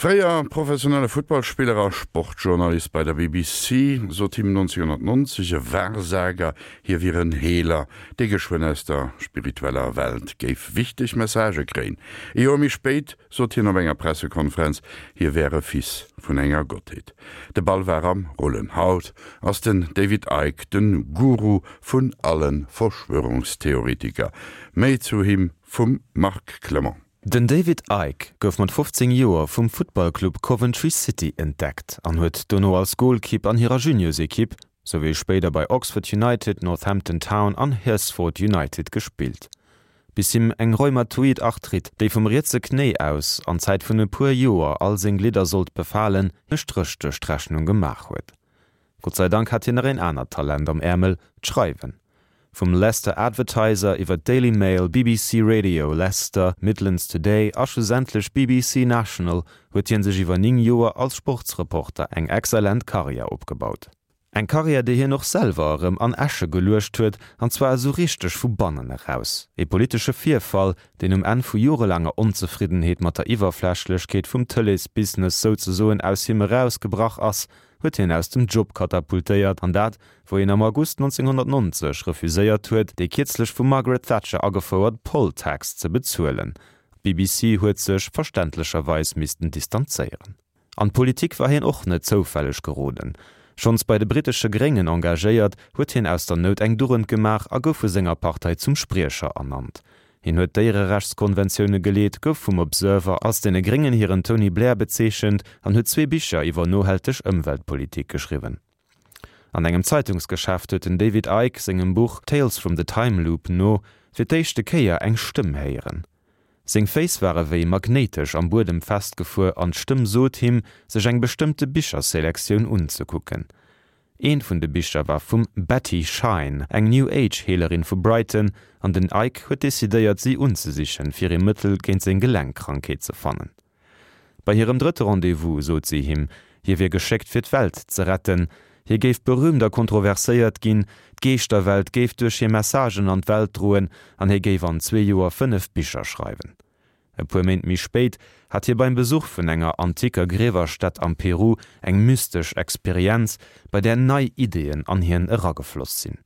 Fréier professionelle Futtballspiller a Sportjournalist bei der BBC, sot him 1990 e Wahrsager, hie wier en Heeler, dee geschwënn aus der spiritueller Welt géif wichteg Messagë kréien. E Joer méi spéit sot hien op enger Pressekonferenz, hie wär e Fils vun enger Gottheet. De Ball war am Rullen. Haut ass den David Icke de Guru vun alle Verschwörungstheoretiker. Méi zu him vum Marc Clement. Den David Icke gouf mat 15 Joer vum Futtballclub Coventry City entdeckt an huet dono als Golkipp an hirer Juniorsekipp, souwéi spéider bei Oxford United, Northampton Town an Herstford United gespillt, bis him eng rheumatoid Arthrite, déi vum rietse Knéi aus an Zäit vun e puer Joer all seng Glidder sollt befalen, e Stréch duerch d'Rechnung gemaach huet. Gott sei Dank hat hien nach een anert Talent am Äermel, d'Schreiwen. Vum Leicester Advertiser iwwer d'Daily Mail, BBC Radio Leicester, Midlands Today a schlussendlech BBC National huet hien sech iwwer 9 Joer als Sportsreporter eng exzellent Karriär opgebaut. Eng Karriär, déi hien och selwer erëm an Äsche geluecht huet, an zwar esou richteg vu bannen eraus. Ee politesche Virfall, deen um Enn vu jorelaanger Onzefriddenheet mat der Iwwerflächlechkeet vum Tëleesbusiness souzesoen aus him erausgebrach ass, huet hien aus dem Job katapultéiert, an dat, wou hien am August 1990 refuséiert huet, déi kierzlech vum Margaret Thatcher agefouert Poll Tax ze bezuelen. D'BBC huet sech verständlecherweis missten distanzéieren. An d'Politik war hien och net zoufälleg geroden. Schonns bei de brittesche Gréngen engagéiert, huet hien aus der Nout eng Dugend gemaach a gouf vu senger Partei zum Spriecher ernannt. Hien huet Déiererechtskonventioune geleet, gouf vum Observer als deene Gréngen hiren Tony Blair bezeechent an huet zwee Bicher iwwer nohalteg Ëmweltpolitik geschriwwen. An engem Zeitungsgeschäft huet den David Icke sengem Buch Tales from the Time Loop no fir d'éischte Kéier eng Stëmm héieren. Seng Féiss ware wéi magnéitesch am Buedem festgefuer an d'Stëmm sot him, sech eng bestëmmte Bicherselektioun unzekucken. Eent vun de Bicher war vum Betty Shine, eng New Age Heelerin vu Brighton, an den Icke huet decidéiert si unzesichen, fir ee Mëttel géint seng Gelenkkrankheet ze fannen. Bei hirem drëtte Rendez-vous sot si him, hie wier geschéckt fir d'Welt ze retten, hie géif berühmt a kontroverséiert ginn, d'Geeschterwelt géif duerch hir Messagen an d'Welt droen an hie géif an zwee Joer 5 Bicher schreiwen. E puer Méint méi spéit hat hie beim Besuch vun enger antiker Griewerstätt am Peru eng mystesch Experienz, bei där nei Ideeën an hien eragefloss sinn.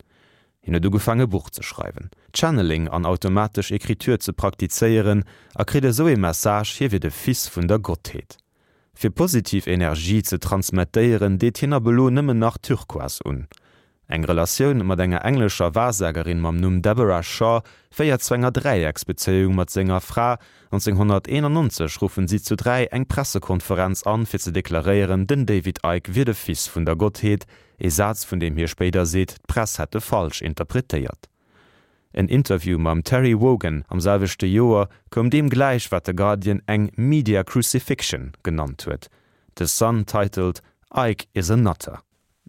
Hien huet ugefaang e Buch ze schreiwen, Channeling an automatesch Ecriture ze praktizéieren a kritt esou ee Message, hie wier de Fils vun der Gottheet. Fir positiv Energie ze transmettéieren, deet hien ab elo nëmmen nach Turquoise un. Eng Relatioun mat enger englescher Wahrsagerin mam Numm Deborah Shaw féiert zu enger Dräiecksbezéiung mat senger Fra. 1991 ruffen si zu 3 eng Pressekonferenz an, fir ze deklaréieren, den David Icke wier de Fils vun der Gottheet, ee Saz vun deem hie spéider seet, d'Press hätt e falsch interpretéiert. En Interview mam Terry Wogan am selwechte Joer koum deem gläich, wat de Guardian eng media crucifixion genannt huet. The Sun titelt Icke is a nutter.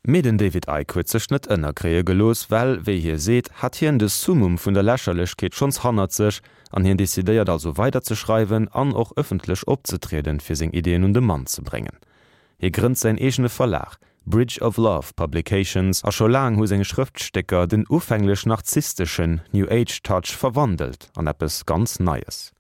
Mee den David Icke huet sech net ënnerkréie gelooss, well, wéi hie seet, hat hien de Summum vun der Lächerlechkeet schonns hannert sech an hien decidéiert also weider ze schreiwen an och ëffentlech opzetrieden, fir seng Ideeën un de Mann ze bréngen. Hie grënnt säin eegene Verlag, Bridge of Love Publications, a scho laang hu seng Schrëftstécker den ufänglech narzissteschen New Age Touch verwandelt an eppes ganz Neies.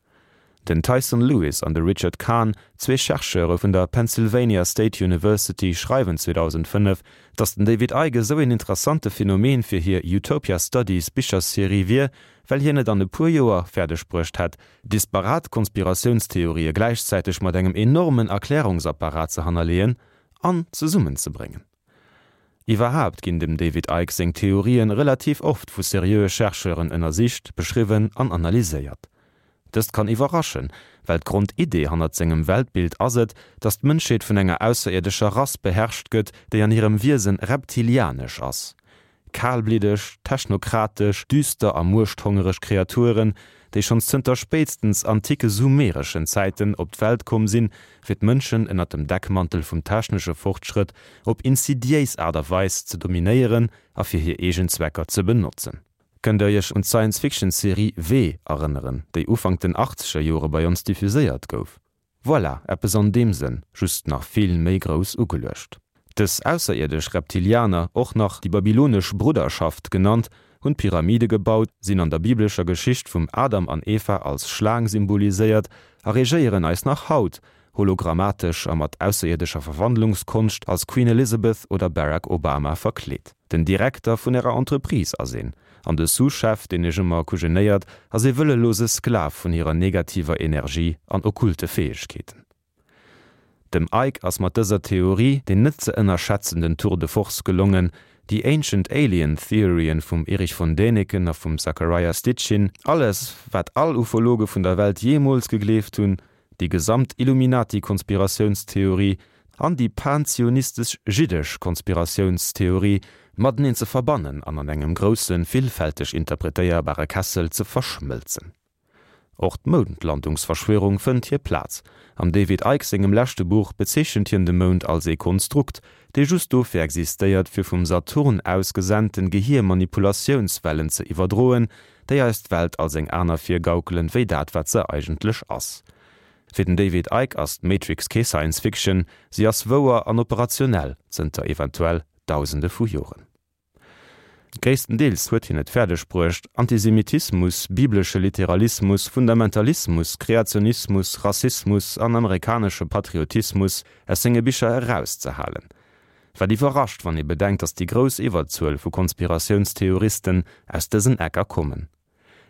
Den Tyson Lewis an de Richard Kahn, zwee Chercheure vun der Pennsylvania State University, schreiwen 2005, datt den David Icke esou een interessante Phänomen fir hir Utopia Studies Bicherserie wier, well hien et an e puer Joer fäerdeg bruecht hätt, disparat Konspiratiounstheorië gläichzäiteg mat engem enormen Erklärungsapparat ze hannerleeën an zesummenzebréngen. Iwwerhaapt ginn dem David Icke seng Theorien relativ oft vu seriöe Chercheuren ënnersicht, beschriwwen an analyséiert. Dëst kann iwwerraschen, well d'Grondidee hannert sengem Weltbild ass et, datt d'Mënschheet vun enger ausserierdescher Rass beherrscht gëtt, déi an hirem Wiesen reptilianesch ass. Kalbliddeg, technokratesch, düster a muechthongereg Kreaturen, déi schonns zënter spéitstens antike sumereschen Zäiten op d'Welt komm sinn, fir d'Mënschen ënnert dem Deckmantel vum technesche Fortschrëtt op insidiéis Aart a Weis ze dominéieren a fir hir eegen Zwecker ze benotzen. Kënnt der iech un d'Science-Fiction-Serie W erënneren, déi Ufank den achtzeger Jore bei ons diffuséiert gouf? Voilà, eppes an deem Sënn, just nach vill méi grouss ugeluecht. Dës ausserierdesch Reptilianer, och nach déi babylonesch Brudderschaft genannt, hunn d'Pyramide gebaut, sinn an der biblescher Geschicht vum Adam an Eva als Schlaang symboliséiert a regéieren eis nach haut. hologrammatesch a mat ausserierdescher Verwandlungskonscht als Queen Elizabeth oder Barack Obama verkleet. Den Direkter vun ärer Entreprise ass een, an de Sous-Chef, deen iech ëmmer kujenéiert, ass ee wëllelose Sklav vun hirer negativer Energie an okkulte Fäegkeeten. Dem Icke ass mat dëser Theorie deen net ze ënnerschätzenden Tour de force gelongen, déi Ancient Alien Theorien vum Erich von Däniken a vum Zachariah Sitchin, alles wat all Ufologe vun der Welt jeemools gegleeft hunn, déi gesamt Illuminati-Konspiratiounstheorie an déi pan-zionistesch-jiddesch Konspiratiounstheorie mateneen ze verbannen an an engem groussen, villfälteg interpretéierbare Kessel ze verschmëlzen. Och d'Moundlandungsverschwörung fënnt hir Plaz. Am David Icke sengem leschte Buch bezeechent hien de Mound als ee Konstrukt, dee just dofir existéiert, fir vum Saturn aus gesenten Gehiermanipulatiounswellen ze iwwerdroen, déi eis d'Welt als eng aner virgaukelen, wéi dat wat se eigentlech ass. Fir den David Icke ass d'Matrix kee Science Fiction, si ass wouer an operationell zënter eventuell Dausende vu Joren. Gréisstendeels huet hien et fäerdeg bruecht, Antisemitismus, biblesche Literalismus, Fundamentalismus, Kreationismus, Rassismus an amerikanesche Patriotismus aus senge Bicher erauszehalen. Wat iwwerrascht, wann ee bedenkt, datt déi grouss Iwwerzuel vu Konspiratiounstheoristen aus dësen Ecker kommen.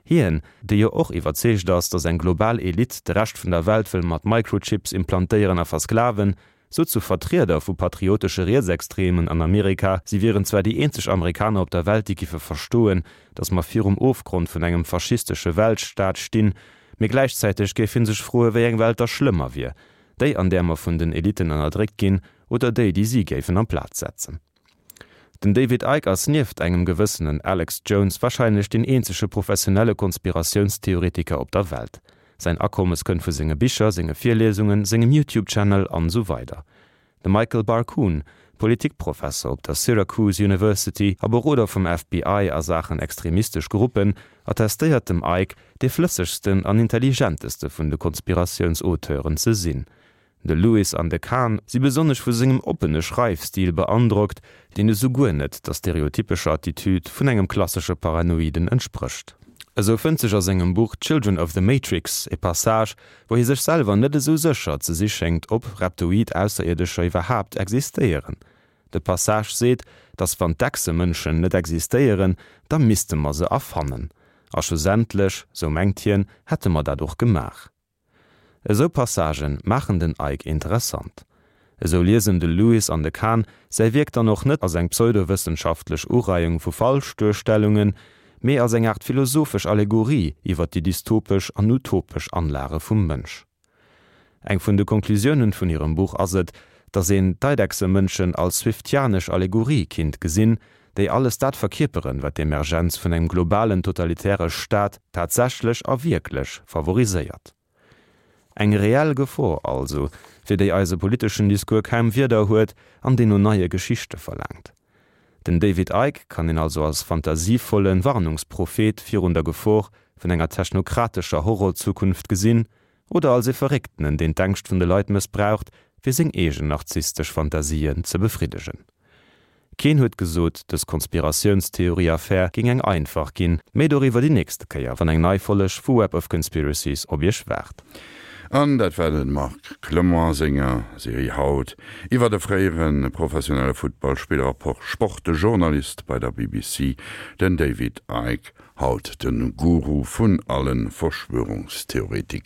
Hien, dee jo och iwwerzeegt ass, datt eng global Elite de Rescht vun der Welt wëll mat Microchips implantéieren a versklaven, sot zu Vertrieder vu patriotesche Rietsextremen an Amerika, si wieren zwar déi eenzeg Amerikaner op der Welt, déi giffe verstoen, datt mer virum Ofgrond vun engem faschistesche Weltstaat stinn, mee gläichzäiteg géif hie sech froe wéi eng Welt da schlëmmer wier, déi an där mer vun den Eliten ënnerdréckt ginn oder déi, déi si géifen amplaz setzen. Den David Icke ass nieft engem gewëssenen Alex Jones warscheinlech deen eenzege professionelle Konspiratiounstheoretiker op der Welt. Säin Akommes kënnt vu senge Bicher, senge Virliesungen, sengem YouTube-Channel an esou weider. De Michael Barkun, Politikprofesser op der Syracuse University a Beroder vum FBI a Saachen extremistesch Gruppen, attestéiert dem Icke, dee flëssegsten an intelligenteste vun de Konspiratiouns-Auteuren ze sinn. De Lewis an de Kahn si besonnesch vu sengem oppene Schreifstil beandrockt, deen esou guer net der stereotypescher Attitüd vun engem klassesche Paranoiden entsprécht. Esou fënnt sech a sengem Buch Children of the Matrix e Passage, wou hie sech selwer net esou sécher ze si schéngt, ob reptoid Ausserierdescher iwwerhaapt existéieren. De Passage seet, datt wann d'Echsemënschen net existéieren, da misste mer se erfannen. A schlussendlech, sou mengt hien, hätte mer dat och gemaach. Esou Passagen maachen den Icke interessant. Esou liesen de Lewis an de Kahn säi Wierk dann och net als eng pseudowëssenschaftlech Ureiung vu Falschduerstellungen, mee als eng Aart philosophesch Allegorie iwwer déi dystopesch an utopesch Anlage vum Mënsch. Eng vun de Konklusiounen vun hirem Buch ass et, datt een d'Eidechsemënschen als swiftianesch Allegorie kinnt gesinn, déi alles dat verkierperen, wat d'Emergenz vun engem globalen totalitäre Staat tatsächlech a wierklech favoriséiert. Eng reell Gefor also, fir déi eise politeschen Discours kaum Wierder huet an deen no neie Geschichte verlaangt. Den David Icke kann een also als fantasievolle Warnungsprophet virun der Gefor vun enger technokratescher Horrorzukunft gesinn, oder als ee Verrécktenen, deen d'Ängscht vun de Leit mëssbraucht, fir seng eegen narzisstesch Fantasien ze befriddegen. Keen huet gesot, dës Konspiratiounstheorie-Affär géing eng einfach ginn. Méi doriwwer déi nächste Kéier, wann eng nei Folleg vu Web of Conspiracies op iech waart. An dat war de Marc Clement a senger Serie haut iwwer e fréiere professionelle Futtballspiller a Sportjournalist bei der BBC, den David Icke, haut de Guru vun alle Verschwörungstheoretiker.